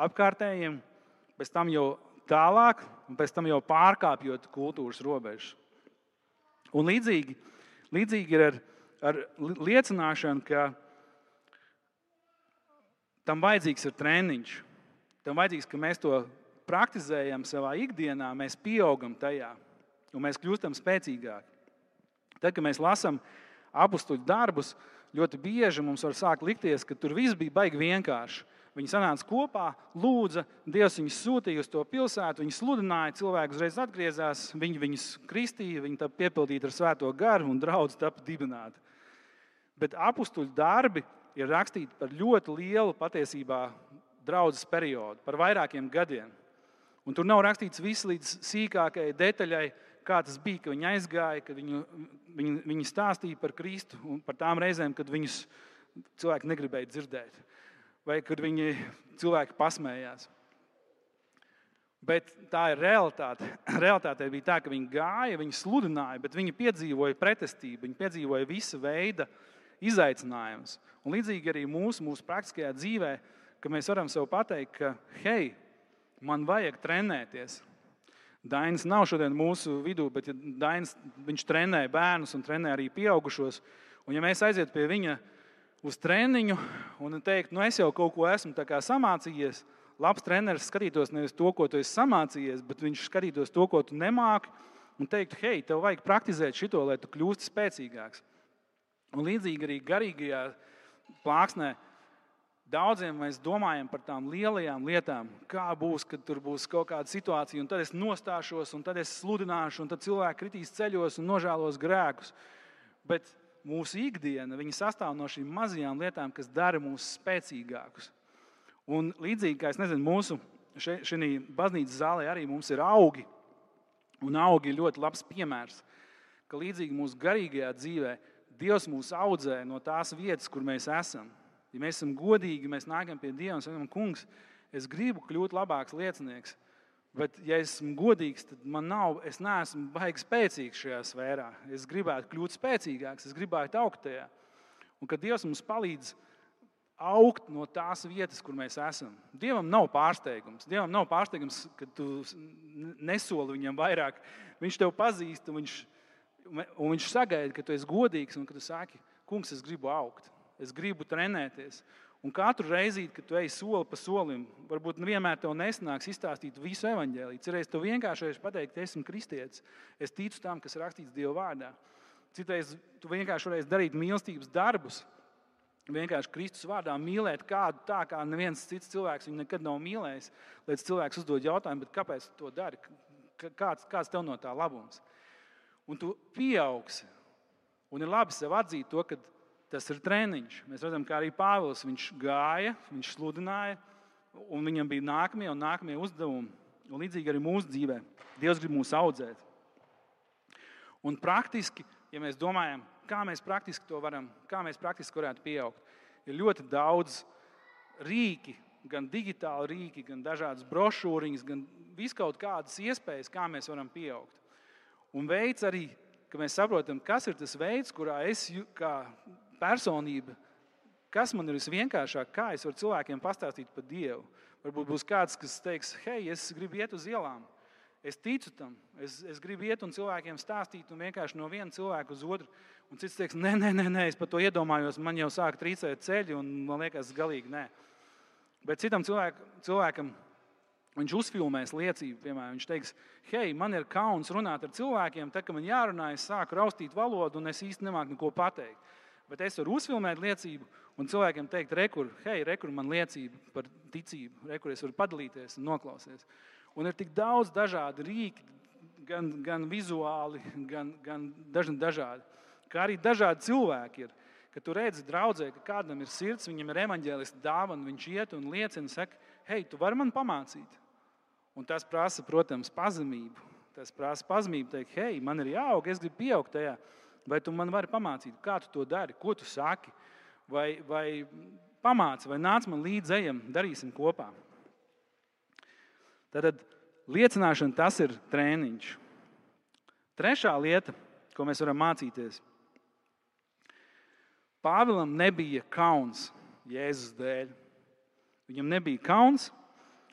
apkārtējiem, pēc tam jau tālāk, un pēc tam jau pārkāpjot kultūras robežas. Un līdzīgi ir ar liecināšanu, ka tam vajadzīgs ir treniņš. Tam vajadzīgs, ka mēs to praktizējam savā ikdienā, mēs pieaugam tajā, un mēs kļūstam spēcīgāki. Tad, kad mēs lasām apustuļu darbus, ļoti bieži mums var sākt likties, ka tur viss bija baigi vienkārši. Viņi sanāca kopā, lūdza, Dievs viņus sūtīja uz to pilsētu, viņi sludināja, cilvēki uzreiz atgriezās, viņi viņus kristīja, viņi tapa piepildīti ar svēto garu un draudz tapa dibināti. Bet apustuļu darbi ir rakstīti par ļoti lielu patiesībā draudzes periodu, par vairākiem gadiem. Un tur nav rakstīts viss līdz sīkākajai detaļai, kā tas bija, ka viņi aizgāja, kad viņi stāstīja par Kristu un par tām reizēm, kad viņus cilvēki negribēja dzirdēt. Vai kad cilvēki pasmējās. Bet tā ir realitāte. Realitāte bija tā, ka viņi gāja, viņi sludināja, bet viņi piedzīvoja pretestību, viņi piedzīvoja visa veida izaicinājumus. Un līdzīgi arī mūsu praktiskajā dzīvē, ka mēs varam sev pateikt, ka hei, man vajag trenēties. Dainis nav šodien mūsu vidū, bet Dainis, viņš trenē bērnus un trenē arī pieaugušos. Un ja mēs aiziet pie viņa uz treniņu un teikt, es jau kaut ko esmu tā kā samācījies, labs treneris skatītos nevis to, ko tu esi samācījies, bet viņš skatītos to, ko tu nemāki, un teiktu, hei, tev vajag praktizēt šito, lai tu kļūsti spēcīgāks. Un līdzīgi arī garīgajā plāksnē daudziem mēs domājam par tām lielajām lietām, kā būs, kad tur būs kaut kāda situācija, un tad es nostāšos, un tad es sludināšu, un tad cilvēki kritīs ceļos un nožēlos grēkus. Bet mūsu ikdiena, viņa sastāv no šīm mazajām lietām, kas dara mūs spēcīgākus. Un līdzīgi, kā mūsu šī baznīcas zālē arī mums ir augi, un augi ir ļoti labs piemērs, ka līdzīgi mūsu garīgajā dzīvē Dievs mūs audzē no tās vietas, kur mēs esam. Ja mēs esam godīgi, mēs nākam pie Dieva un sakam, kungs, es gribu kļūt labāks liecinieks, bet ja esmu godīgs, tad es neesmu baigi spēcīgs šajā sfērā. Es gribētu kļūt spēcīgāks, es gribētu augt tajā. Un kad Dievs mums palīdz augt no tās vietas, kur mēs esam. Dievam nav pārsteigums. Dievam nav pārsteigums, ka tu nesoli viņam vairāk. Viņš tev pazīst un viņš sagaida, ka tu esi godīgs un ka tu saki, kungs, es gribu augt. Es gribu trenēties. Un katru reizi, kad tu ej soli pa solim, varbūt vienmēr tev nesanāks izstāstīt visu evaņģēliju. Citreiz tu vienkārši pateikt, esmu kristietis. Es ticu tam, kas rakstīts Dieva vārdā. Citreiz tu vienkārši varēsi darīt mīlestības darbus. Vienkārši Kristus vārdā mīlēt kādu tā, kā neviens cits cilvēks viņu nekad nav mīlējis. Līdz cilvēks uzdod jautājumu, bet kāpēc tu to dari? Kāds tev no tā labums? Un tu pieaugsi. Un ir labi sev atzīt to, ka tas ir treniņš. Mēs redzam, kā arī Pāvils, viņš gāja, viņš sludināja, un viņam bija nākamie uzdevumi. Un līdzīgi arī mūsu dzīvē. Dievs grib mūs audzēt. Un praktiski, ja mēs domājam, kā mēs praktiski varētu pieaugt, ir ļoti daudz rīki, gan digitāli rīki, gan dažādas brošūriņas, gan viskaut kādas iespējas, kā mēs varam pieaugt. Un veids arī, ka mēs saprotam, kas ir tas veids, kurā es kā personība, kas man ir visvienkāršāk, kā es varu cilvēkiem pastāstīt par Dievu. Varbūt būs kāds, kas teiks, hei, es gribu iet uz ielām. Es ticu tam. Es gribu iet un cilvēkiem stāstīt un vienkārši no viena cilvēka uz otru. Un cits teiks, nē, es par to iedomājos, man jau sāk trīcēt ceļi un man liekas galīgi nē. Bet citam cilvēkam viņš uzfilmēs liecību, piemēram, viņš teiks, hei, man ir kauns runāt ar cilvēkiem, tad, kad man jārunā, es sāku raustīt valodu un es īsti nemāku neko pateikt. Bet es varu uzfilmēt liecību un cilvēkiem teikt, rekur man liecība par ticību, rekur es varu padalīties un noklausties. Un ir tik daudz dažādi rīki, gan vizuāli, gan dažādi. Kā arī dažādi cilvēki ir, Kad tu redzi draudzē, ka kādam ir sirds, viņam ir evaņģēlista dāvana, viņš iet un liecina, saka, hei, tu vari man pamācīt. Un tas prasa, protams, pazemību. Tas prasa pazemību teikt, hei, man ir jāaug, es gribu pieaugt tajā. Vai tu man vari pamācīt, kā tu to dari, ko tu saki, vai pamāci, vai nāc man līdz ejam, darīsim kopā. Tad liecināšana tas ir trēniņš. Trešā lieta, ko mēs varam mācīties. Pāvilam nebija kauns Jēzus dēļ. Viņam nebija kauns,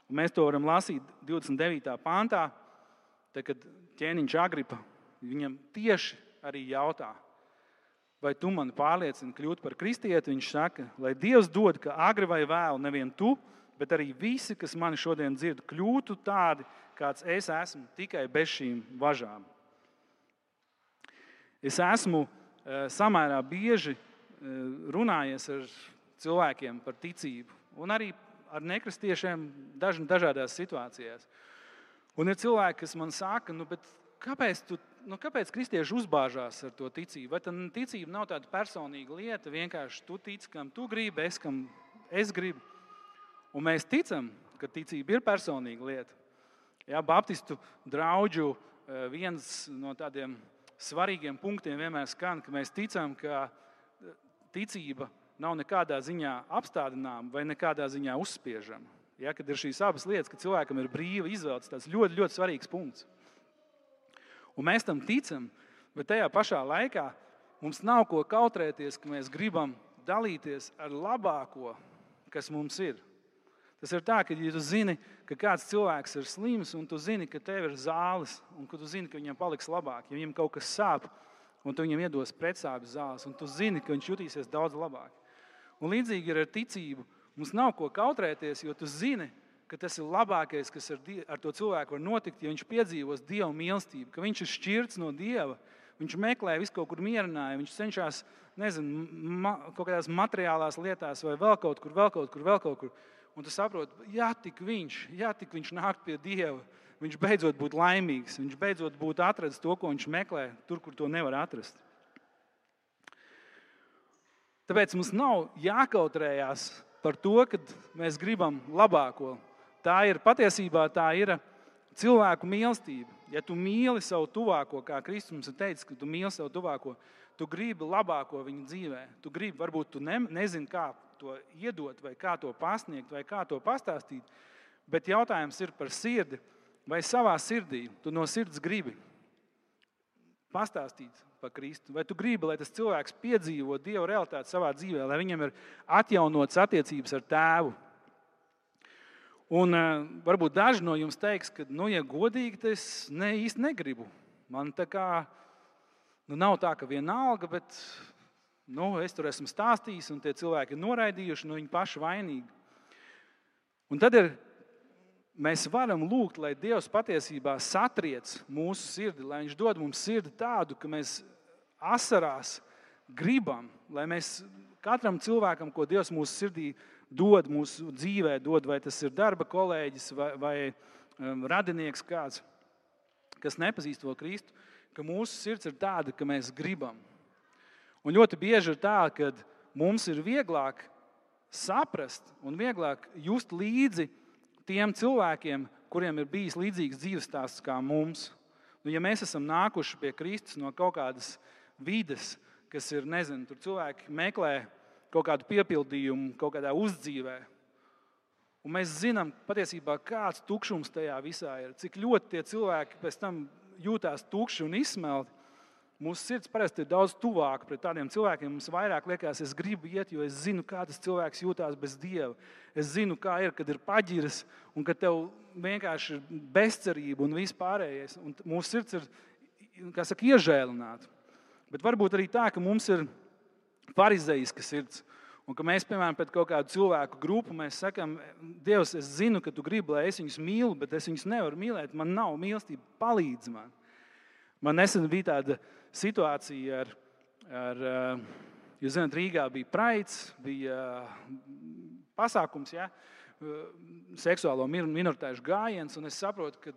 un mēs to varam lasīt 29. pantā, tad, kad ķēniņš Agripa viņam tieši arī jautā, vai tu mani pārliecini kļūt par kristieti, viņš saka, lai Dievs dod, ka agri vai vēlu nevien tu, bet arī visi, kas mani šodien dzird, kļūtu tādi, kāds es esmu, tikai bez šīm važām. Es esmu samērā bieži runājies ar cilvēkiem par ticību un arī ar nekristiešiem dažādās situācijās. Un ir cilvēki, kas man saka, kāpēc kristieši uzbāžās ar to ticību? Vai tā ticība nav tāda personīga lieta, vienkārši tu tici, kam tu gribi, kam es gribu. Un mēs ticam, ka ticība ir personīga lieta. Jā, baptistu draudžu viens no tādiem svarīgiem punktiem vienmēr skan, ka mēs ticam, ka ticība nav nekādā ziņā apstādināma vai nekādā ziņā uzspiežama. Ja, kad ir šīs abas lietas, ka cilvēkam ir brīva izvēle, tas ļoti, ļoti svarīgs punkts. Un mēs tam ticam, bet tajā pašā laikā mums nav ko kautrēties, ka mēs gribam dalīties ar labāko, kas mums ir. Tas ir tā, ka ja tu zini, ka kāds cilvēks ir slims un tu zini, ka tev ir zāles un ka tu zini, ka viņam paliks labāk, ja viņam kaut kas sāp un tu viņam iedos pretsāpju zāles un tu zini, ka viņš jutīsies daudz labāk. Un līdzīgi ir ar ticību. Mums nav ko kautrēties, jo tu zini, ka tas ir labākais, kas ar to cilvēku var notikt, ja viņš piedzīvos Dieva mīlestību, ka viņš ir šķirts no Dieva, viņš meklē visu kaut kur mierinājumu, viņš cenšas, kaut kādās materiālās lietās vai vēl kaut kur. Un tu saproti, ja tik viņš nāk pie Dieva, viņš beidzot būtu laimīgs, viņš beidzot būtu atradis to, ko viņš meklē, tur, kur to nevar atrast. Tāpēc mums nav jākautrējās par to, ka mēs gribam labāko. Patiesībā tā ir cilvēku mīlestība. Ja tu mīli savu tuvāko, kā Kristus mums ir teicis, ka tu mīli savu tuvāko, tu gribi labāko viņa dzīvē. Tu gribi, varbūt tu nezini, kā to iedot, vai kā to pasniegt, vai kā to pastāstīt, bet jautājums ir par sirdi, vai savā sirdī tu no sirds gribi pastāstīt par Kristu, vai tu gribi, lai tas cilvēks piedzīvo Dieva realitāti savā dzīvē, lai viņam ir atjaunotas attiecības ar Tēvu. Un varbūt daži no jums teiks, ka, ja godīgi, tad es īsti negribu. Man tā kā, nav tā, ka vienalga, bet es tur esmu stāstījis, un tie cilvēki ir noraidījuši, viņi paši vainīgi. Un tad mēs varam lūgt, lai Dievs patiesībā satriec mūsu sirdi, lai viņš dod mums sirdi tādu, ka mēs asarās gribam, lai mēs katram cilvēkam, ko Dievs mūsu sirdī dod, mūsu dzīvē dod, vai tas ir darba kolēģis vai radinieks kāds, kas nepazīst to Kristu, ka mūsu sirds ir tāda, ka mēs gribam. Un ļoti bieži ir tā, ka mums ir vieglāk saprast un vieglāk just līdzi tiem cilvēkiem, kuriem ir bijis līdzīgs dzīves stāsts kā mums. Ja mēs esam nākuši pie Kristus no kaut kādas vides, kas ir, tur cilvēki meklē kaut kādu piepildījumu, kaut kādā uzdzīvē. Un mēs zinām patiesībā, kāds tukšums tajā visā ir, cik ļoti tie cilvēki pēc tam jūtās tukši un izsmelti. Mūsu sirds parasti ir daudz tuvāka pret tādiem cilvēkiem. Mums vairāk liekas, es gribu iet, jo es zinu, kā tas cilvēks jūtās bez Dieva. Es zinu, kā ir, kad ir paģiras un kad tev vienkārši ir bezcerība un viss pārējais. Un mūsu sirds ir, iežēlināta. Bet varbūt arī tā, ka mums ir farizeiska sirds. Un ka mēs, piemēram, pēc kaut kādu cilvēku grupu, mēs sakam, Dievs, es zinu, ka tu gribi, lai es viņus mīlu, bet es viņus nevaru mīlēt. Man nav mīlestība, palīdz man. Man nesen bija tāda situācija jūs zināt, Rīgā bija Praids, bija pasākums, seksuālo minoritāšu gājiens, un es saprotu, ka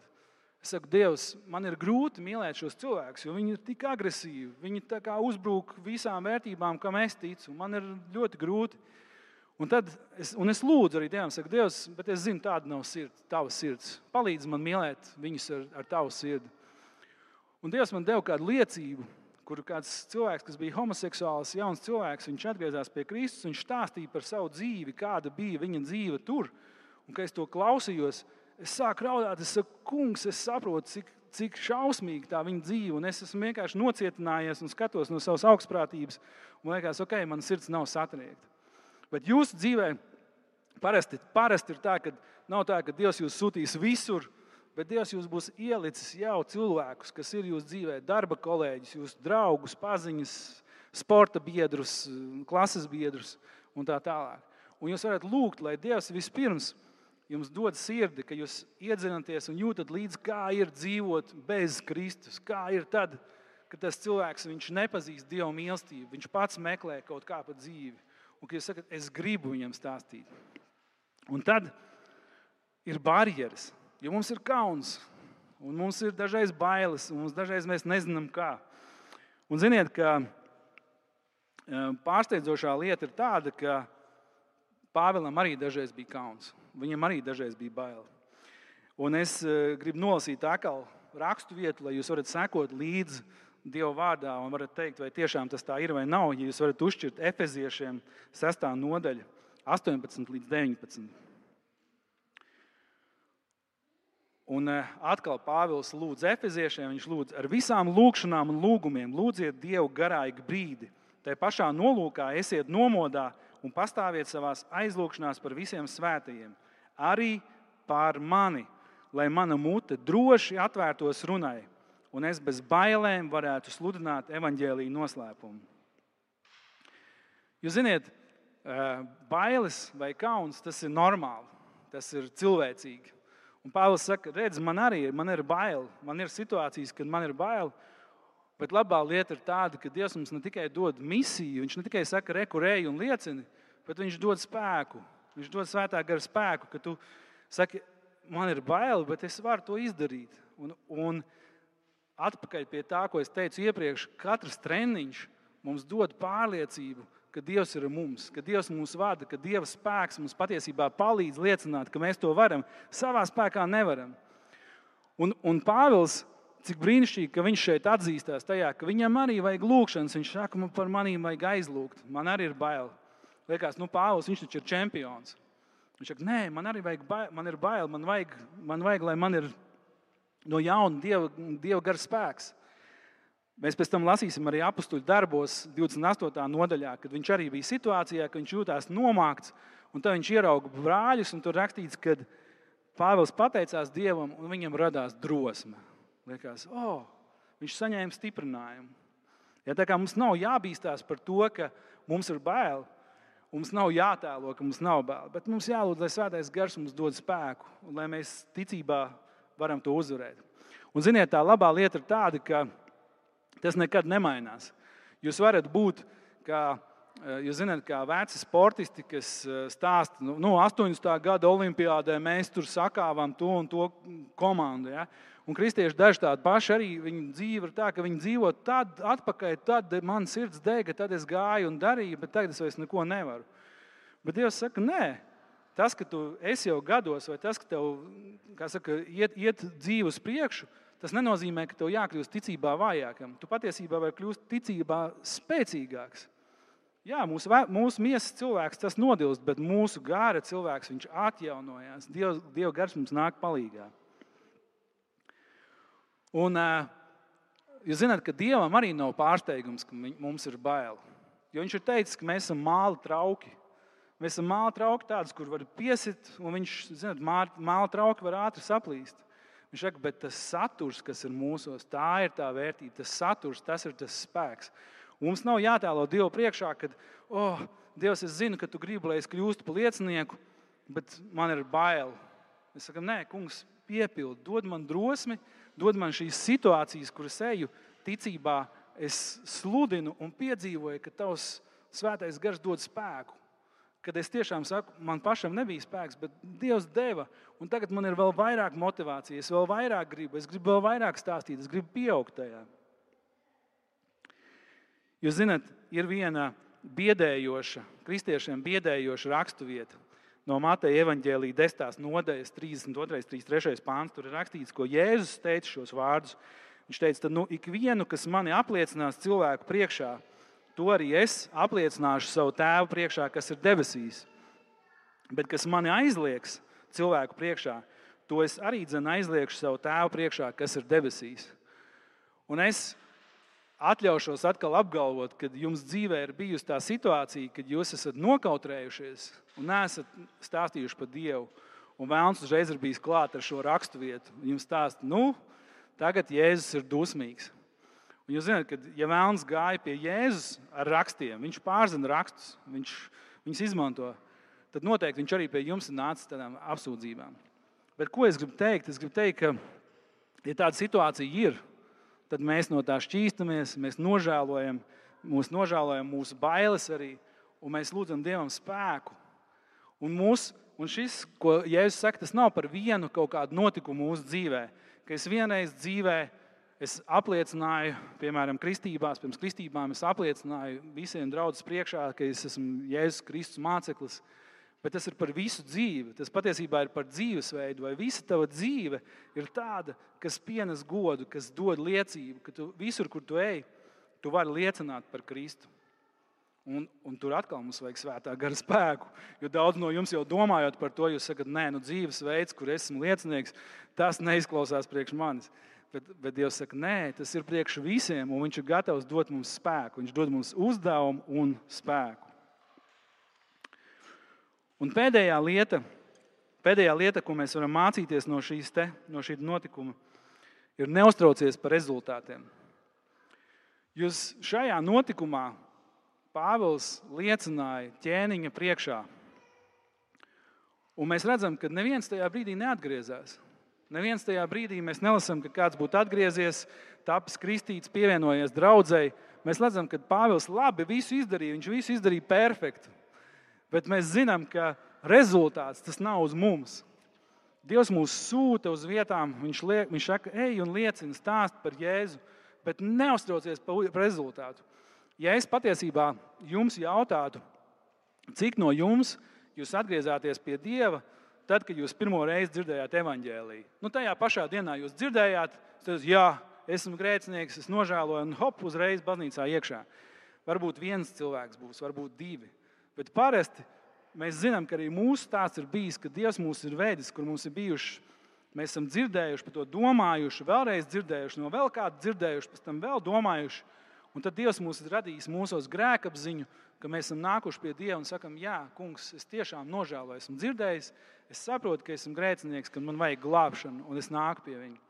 Es saku, Dievs, man ir grūti mīlēt šos cilvēkus, jo viņi ir tik agresīvi. Viņi tā kā uzbrūk visām vērtībām, kam es ticu. Man ir ļoti grūti. Un es lūdzu arī Dievam, saku, Dievs, bet es zinu, tāda nav tava sirds. Palīdz man mīlēt viņus ar tavu sirdi. Un Dievs man deva kādu liecību, kur kāds cilvēks, kas bija homoseksuāls, jauns cilvēks, viņš atgriezās pie Kristus, viņš stāstīja par savu dzīvi, kāda bija viņa dzīve tur. Un, kad es to klausījos, es sāku raudāt, es saku, kungs, es saprotu, cik šausmīgi tā viņa dzīve, un es esmu vienkārši nocietinājies un skatos no savas augstprātības, un liekas, ok, man sirds nav satriekta. Bet jūsu dzīvē parasti ir tā, ka nav tā, ka Dievs jūs sūtīs visur, bet Dievs jūs būs ielicis jau cilvēkus, kas ir jūsu dzīvē, darba kolēģis, jūsu draugus, paziņas, sporta biedrus, klases biedrus un tā tālāk. Un jūs varat lūgt, lai Dievs vispirms jums dod sirdi, ka jūs iedzinaties un jūtat līdzi, kā ir dzīvot bez Kristus, kā ir tad, kad tas cilvēks, viņš nepazīst Dieva mīlestību, viņš pats meklē kaut kā pa dzīvi. Un kad jūs sakat, es gribu viņam stāstīt. Un tad ir barjeras, jo mums ir kauns, un mums ir dažreiz bailes, un dažreiz mēs nezinām kā. Un ziniet, ka pārsteidzošā lieta ir tāda, ka Pāvilam arī dažreiz bija kauns. Viņam arī dažreiz bija bail. Un es gribu nolasīt atkal rakstu vietu, lai jūs varat sekot līdzi Dieva vārdā un varat teikt, vai tiešām tas tā ir vai nav. Ja jūs varat uzšķirt Efeziešiem 6. nodaļa, 18 līdz 19. Un atkal Pāvils lūdz Efeziešiem, viņš lūdz ar visām lūgšanām un lūgumiem, lūdziet Dievu garāigi brīdi. Tai pašā nolūkā esiet nomodā un pastāviet savās aizlūgšanās par visiem svētajiem. Arī pār mani, lai mana mute droši atvērtos runai, un es bez bailēm varētu sludināt evaņģēlija noslēpumu. Jūs ziniet, bailes vai kauns, tas ir normāli, tas ir cilvēcīgi. Un Pāvils saka, redz, man ir bail, man ir situācijas, kad man ir bail, bet labā lieta ir tāda, ka Dievs mums ne tikai dod misiju, viņš ne tikai saka, reku, ej un liecini, bet viņš dod spēku. Viņš dod svētā gara spēku, ka tu saki, man ir bail, bet es varu to izdarīt. Un atpakaļ pie tā, ko es teicu iepriekš, katrs treniņš mums dod pārliecību, ka Dievs ir mums, ka Dievs mūs vada, ka Dieva spēks mums patiesībā palīdz liecināt, ka mēs to varam. Savā spēkā nevaram. Un Pāvils, cik brīnišķīgi, ka viņš šeit atzīstās tajā, ka viņam arī vajag lūgšanas. Viņš saka, man par manīm vajag aizlūgt. Man arī ir bail. Liekas, Pāvils, viņš taču ir čempions. Viņš saka, nē, man arī vajag bail, man ir bail. Man vajag, lai man ir no jauna Dieva gara spēks. Mēs pēc tam lasīsim arī apustuļu darbos 28. nodaļā, kad viņš arī bija situācijā, ka viņš jūtās nomākts, un tad viņš ierauga brāļus, un tur rakstīts, ka Pāvils pateicās Dievam, un viņam radās drosme. Liekas, viņš saņēma stiprinājumu. Ja, tā kā mums nav jābīstās par to, ka mums ir bail, mums nav jātēlo, ka mums nav bail, bet mums jālūdz, lai svētais gars mums dod spēku, un lai mēs ticībā varam to uzvarēt. Un ziniet, tā labā lieta ir tāda, ka tas nekad nemainās. Jūs varat būt, jūs zināt, kā veci sportisti, kas stāsta, 80. gada olimpiādē mēs tur sakāvām to un to komandu. Ja? Un kristieši daži tādi paši arī, viņu dzīve ir tā, ka viņi dzīvo tad atpakaļ, tad man sirds dega, tad es gāju un darīju, bet tagad es vairs neko nevaru. Bet Dievs saka, nē, tas, ka tu esi jau gados, vai tas, ka tev, kā saka, iet dzīve uz priekšu, tas nenozīmē, ka tev jākļūst ticībā vājākam. Tu patiesībā vari kļūst ticībā spēcīgāks. Jā, mūsu miesas cilvēks tas nodilst, bet mūsu gāra cilvēks, viņš atjaunojās. Dieva gars mums nāk palīgā. Un jūs zināt, ka Dievam arī nav pārsteigums, ka mums ir bail. Jo viņš ir teicis, ka mēs esam māla trauki. Mēs esam māla trauki tādus, kur var piesit, un viņš, zināt, māla trauki var ātri saplīst. Viņš saka, bet tas saturs, kas ir mūsos, tā ir tā vērtība, tas saturs, tas ir tas spēks. Un mums nav jātēlo Dievu priekšā, kad, Dievs, es zinu, ka tu gribi, lai es kļūstu par liecinieku, bet man ir bail. Mēs sakam, nē, kungs, piepildi, dod man drosmi, dod man šīs situācijas, kuras eju ticībā, es sludinu un piedzīvoju, ka tavs svētais gars dod spēku, kad es tiešām saku, man pašam nebija spēks, bet Dievs deva, un tagad man ir vēl vairāk motivācija, es vēl vairāk gribu, es gribu vēl vairāk stāstīt, es gribu pieaugt tajā. Jūs zināt, ir viena kristiešiem biedējoša rakstuvieta no Mateja evaņģēlija 10. nodaļas 32. 33. pāns. Tur ir rakstīts, ko Jēzus teica šos vārdus. Viņš teica, tad ikvienu, kas mani apliecinās cilvēku priekšā, to arī es apliecināšu savu tēvu priekšā, kas ir debesīs. Bet kas mani aizliegs cilvēku priekšā, to es arī aizliegšu savu tēvu priekšā, kas ir debesīs. Un es atļaušos atkal apgalvot, ka jums dzīvē ir bijusi tā situācija, kad jūs esat nokautrējušies un neesat stāstījuši par Dievu. Un Vēlns uzreiz ir bijis klāt ar šo raksturvietu. Jums stāsta, tagad Jēzus ir dusmīgs. Un jūs zināt, ka ja Vēlns gāja pie Jēzus ar rakstiem, viņš pārzina rakstus, viņš viņus izmanto, tad noteikti viņš arī pie jums ir nācis tādām apsūdzībām. Bet ko es gribu teikt? Es gribu teikt, ka ja tāda situācija ir, tad mēs no tā šķīstamies, mēs nožēlojam mūsu bailes arī, un mēs lūdzam Dievam spēku. Un šis, ko Jēzus saka, tas nav par vienu kaut kādu notikumu mūsu dzīvē, ka es vienreiz dzīvē apliecināju, piemēram, pirms kristībām es apliecināju visiem draudzes priekšā, ka es esmu Jēzus Kristus māceklis, bet tas ir par visu dzīvi. Tas patiesībā ir par dzīvesveidu, vai visa tava dzīve ir tāda, kas pienes godu, kas dod liecību, ka tu visur, kur tu ej, tu vari liecināt par Kristu. Un tur atkal mums vajag svētā gara spēku, jo daudz no jums jau domājot par to, jūs sakat, dzīvesveids, kur esmu liecinieks, tas neizklausās priekš manis. Bet Dievs saka, tas ir priekš visiem, un viņš ir gatavs dot mums spēku. Viņš dod mums uzdevumu un spēku. Un pēdējā lieta, ko mēs varam mācīties no šī notikuma, ir neuztraucies par rezultātiem. Jūs šajā notikumā Pāvils liecināja ķēniņa priekšā. Un mēs redzam, ka neviens tajā brīdī neatgriezās. Neviens tajā brīdī mēs nelasām, ka kāds būtu atgriezies, tapis kristīts, pievienojies draudzei. Mēs redzam, ka Pāvils labi visu izdarīja, viņš visu izdarīja perfekti. Bet mēs zinām, ka rezultāts tas nav uz mums. Dievs mūs sūta uz vietām, viņš saka, ej un liecini, stāst par Jēzu, bet neuztraucies par rezultātu. Ja es patiesībā jums jautātu, cik no jums jūs atgriezāties pie Dieva, tad, kad jūs pirmo reizi dzirdējāt evaņģēliju. Tajā pašā dienā jūs dzirdējāt, tad jā, esmu grēcinieks, es nožēloju, un hop, uzreiz baznīcā iekšā. Varbūt viens cilvēks būs, varbūt divi. Bet parasti mēs zinām, ka arī mūsu stāsts ir bijis, ka Dievs mūs ir vedis, kur mums ir bijuši, mēs esam dzirdējuši, par to domājuši, vēlreiz dzirdējuši, no vēl kādu dzirdējuši, pēc tam vēl domājuši. Un tad Dievs mūs ir radījis mūsos grēkapziņu, ka mēs esam nākuši pie Dieva un sakam, jā, kungs, es tiešām nožēloju, esmu dzirdējis, es saprotu, ka esmu grēcinieks, ka man vajag glābšanu, un es nāku pie viņa.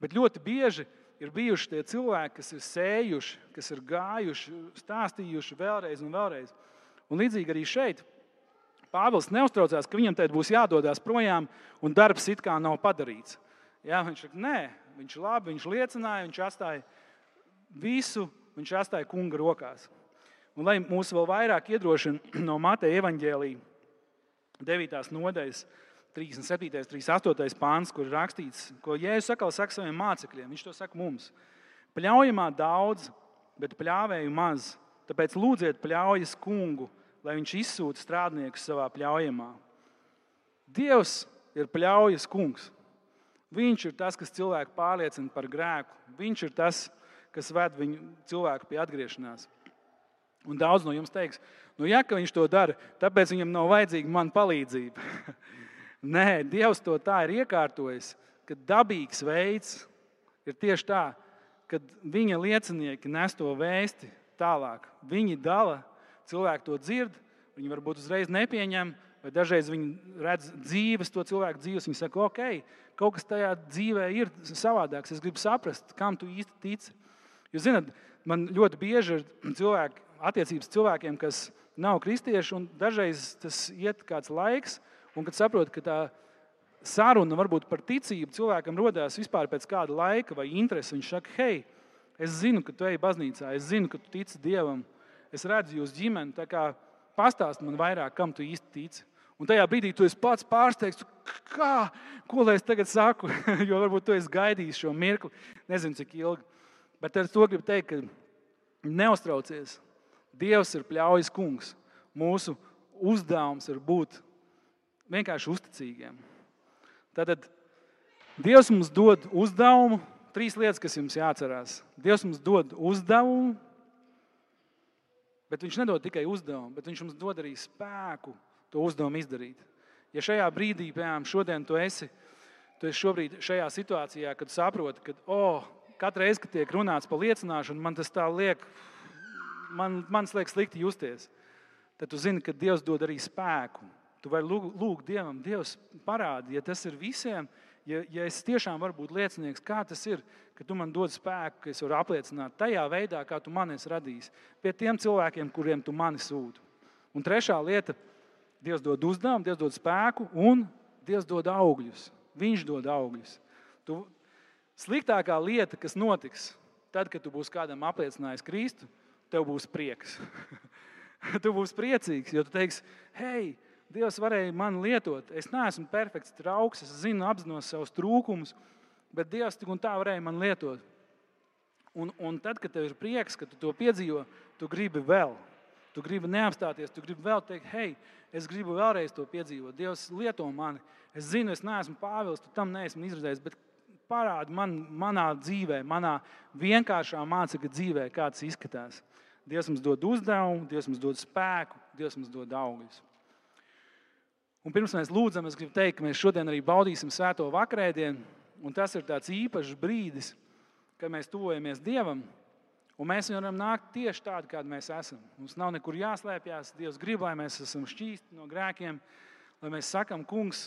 Bet ļoti bieži ir bijuši tie cilvēki, kas ir sējuši, kas ir gājuši, stāstījuši vēlreiz un vēlreiz. Un līdzīgi arī šeit Pāvils neuztraucās, ka viņam tēt būs jādodās projām un darbs it kā nav padarīts. Jā, viņš saka, viņš labi, viņš liecināja, viņš atstāja visu, viņš atstāja kunga rokās. Un lai mūs vēl vairāk iedrošina no Mateja evaņģēlija 9. nodaļas 37. 38. pāns, kur ir rakstīts, ko Jēzus atkal saka saviem mācekļiem. Viņš to saka mums. Pļaujamā daudz, bet pļāvēju maz. Tāpēc lūdziet pļaujas kungu, lai viņš izsūta strādniekus savā pļaujamā. Dievs ir pļaujas kungs. Viņš ir tas, kas cilvēku pārliecina par grēku. Viņš ir tas, kas ved viņu cilvēku pie atgriešanās. Un daudz no jums teiks, ka viņš to dara, tāpēc viņam nav vajadzīga man palīdzība. Nē, Dievs to tā ir iekārtojis, ka dabīgs veids ir tieši tā, kad viņa liecinieki nes to vēsti tālāk. Viņi dala, cilvēki to dzird, viņi varbūt uzreiz nepieņem, vai dažreiz viņi redz dzīves, to cilvēku dzīves, viņi saka, kaut kas tajā dzīvē ir savādāks, es gribu saprast, kam tu īsti tici. Jūs zināt, man ļoti bieži ir attiecības cilvēkiem, kas nav kristieši, un dažreiz tas iet kāds laiks, un kad saprot, ka tā saruna varbūt par ticību cilvēkam rodās vispār pēc kāda laika vai interesi, viņš saka, es zinu, ka tu ej baznīcā, es zinu, ka tu tici Dievam, es redzu jūs ģimeni, tā kā pastāsti man vairāk, kam tu īsti tici. Un tajā brīdī tu esi pats pārsteigts, ko lai es tagad saku, jo varbūt tu esi gaidījis šo mirkli, nezinu cik ilgi. Bet ar to gribu teikt, ka neuztraucies. Dievs ir pļaujas kungs. Mūsu uzdevums ir būt vienkārši uzticīgiem. Tātad Dievs mums dod uzdevumu, 3 lietas, kas jums jāatcerās. Dievs mums dod uzdevumu, bet viņš nedod tikai uzdevumu, bet viņš mums dod arī spēku to uzdevumu izdarīt. Ja šajā brīdī, piemēram, šodien tu esi šobrīd šajā situācijā, kad saproti, ka katru reizi, kad tiek runāts par liecināšanu, man tas tā liek, man liek slikti justies, tad tu zini, ka Dievs dod arī spēku. Tu vari lūgt Dievam, Dievs parādi, ja tas ir visiem, ja es tiešām varu būt liecinieks, kā tas ir, ka tu man dod spēku, ka es varu apliecināt tajā veidā, kā tu mani esi radījis, pie tiem cilvēkiem, kuriem tu mani sūti. Un 3. lieta, Dievs dod uzdevumu, Dievs dod spēku un Dievs dod augļus. Viņš dod augļus. Sliktākā lieta, kas notiks, tad, kad tu būsi kādam apliecinājis Kristu, tev būs prieks. Tu būsi priecīgs, jo tu teiksi, hei, Dievs varēja mani lietot. Es neesmu perfekts trauks, es zinu, apzinos savus trūkumus, bet Dievs tik un tā varēja mani lietot. Un tad, kad tev ir prieks, ka tu to piedzīvo, tu gribi vēl. Tu gribi neapstāties, tu gribi vēl teikt, hei, es gribu vēlreiz to piedzīvot. Dievs lieto mani. Es zinu, es neesmu Pāvils, tu tam neesmu izredzējis, bet parādi manā dzīvē, manā vienkāršā mācekļa dzīvē, kā tas izskatās. Dievs mums dod uzdevumu, Dievs mums dod spēku, Dievs mums dod augļus. Un pirms mēs lūdzam, es gribu teikt, ka mēs šodien arī baudīsim svēto vakarēdienu, un tas ir tāds īpašs brīdis, kad mēs tuvojamies Dievam, un mēs varam nākt tieši tādi, kādi mēs esam. Mums nav nekur jāslēpjas, Dievs grib, lai mēs esam šķīsti no grēkiem, lai mēs sakam, kungs,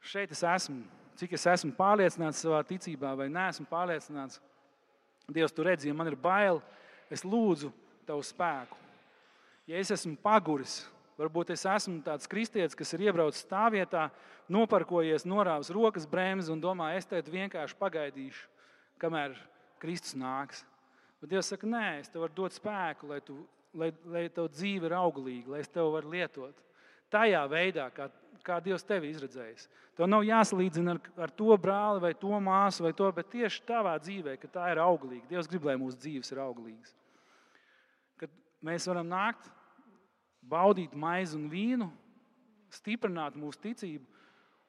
šeit es esmu, cik es esmu pārliecināts savā ticībā vai neesmu pārliecināts. Dievs, tu redzi, ja man ir bail, es lūdzu tavu spēku. Ja es esmu paguris, varbūt es esmu tāds kristietis, kas ir iebraucis stāvvietā, noparkojies, norāvis rokas bremzi un domā, es tagad vienkārši pagaidīšu, kamēr Kristus nāks. Bet Dievs saka, nē, es tev varu dot spēku, lai tev dzīve ir auglīga, lai es tev varu lietot. Tajā veidā, kā Dievs tevi izredzējis. Tev nav jāsalīdzina ar to brāli vai to māsu vai to, bet tieši tavā dzīvē, ka tā ir auglīga. Dievs grib, lai mūsu dzīves ir auglīgas. Kad mēs varam nākt, baudīt maizi un vīnu, stiprināt mūsu ticību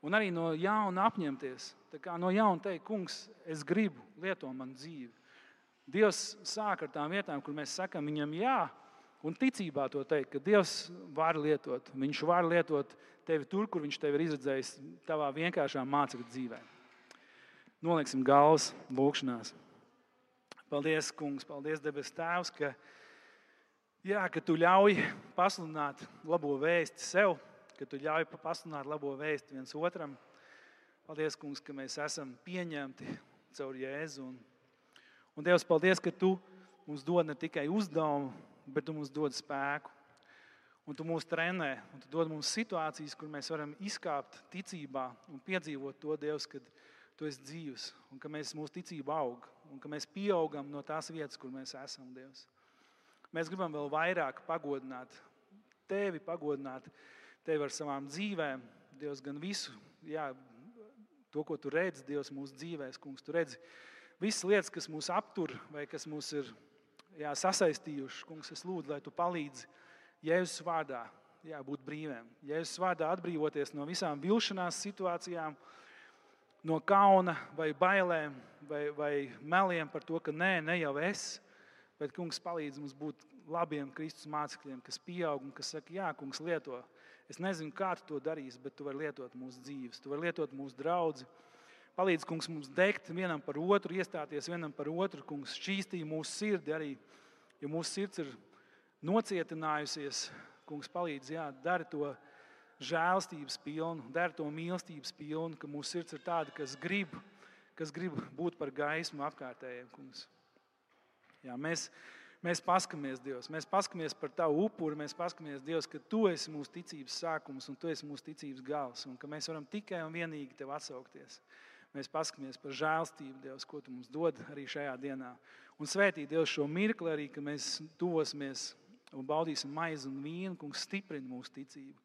un arī no jauna apņemties. Tā kā no jauna teikt, kungs, es gribu, lieto manu dzīvi. Dievs sāk ar tām vietām, kur mēs sakam viņam jā, un ticībā to teikt, ka Dievs var lietot. Viņš var lietot tevi tur, kur viņš tevi ir izredzējis tavā vienkāršā mācekļa dzīvē. Noliksim galvas lūkšanās. Paldies, kungs, paldies, debes Tēvs, ka tu ļauj pasludināt labo vēsti sev, ka tu ļauj pasludināt labo vēsti viens otram. Paldies, kungs, ka mēs esam pieņemti caur Jēzu. Un Dievs, paldies, ka tu mums dod ne tikai uzdevumu, bet tu mums dod spēku. Un tu mūs trenē, un tu dod mums situācijas, kur mēs varam izkāpt ticībā un piedzīvot to, Dievs, kad tu esi dzīvs, un ka mūsu ticība aug, un ka mēs pieaugam no tās vietas, kur mēs esam, Dievs. Mēs gribam vēl vairāk pagodināt tevi ar savām dzīvēm, Dievs, gan visu, to, ko tu redzi, Dievs, mūsu dzīvēs, kungs, tu redzi visas lietas, kas mūs aptur vai kas mūs ir sasaistījuši. Kungs, es lūdzu, lai tu palīdzi Jēzus vārdā būt brīviem. Jēzus vārdā atbrīvoties no visām vilšanās situācijām, no kauna vai bailēm vai meliem par to, ka ne jau es, bet, kungs, palīdz mums būt labiem Kristus mācekļiem, kas pieaug un kas saka, jā, kungs, lieto. Es nezinu, kā tu to darīsi, bet tu vari lietot mūsu dzīves, tu vari lietot mūsu draudzi. Palīdz, kungs, mums degt vienam par otru, iestāties vienam par otru, kungs, šķīstī mūsu sirdi arī, ja mūsu sirds ir nocietinājusies, kungs, palīdz, dari to žēlstības pilnu, dari to mīlestības pilnu, ka mūsu sirds ir tāda, kas grib būt par gaismu apkārtējiem, kungs. Jā, mēs paskamies, Dievs, mēs paskamies par tavu upuri, mēs paskamies, Dievs, ka tu esi mūsu ticības sākums un tu esi mūsu ticības gals, un ka mēs varam tikai un vienīgi tev atsaukties. Mēs paskamies par žēlstību, Dievs, ko tu mums dod arī šajā dienā. Un svētī, Dievs, šo mirkli arī, ka mēs tuvosimies un baudīsim maizi un vīnu. Kungs, stiprini mūsu ticību.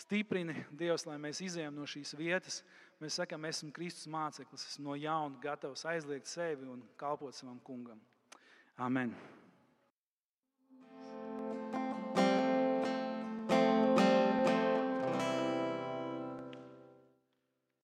Stiprini, Dievs, lai mēs izejam no šīs vietas. Mēs sakām, esmu Kristus māceklis, esmu no jauna gatavs aizliegt sevi un kalpot savam kungam. Amen.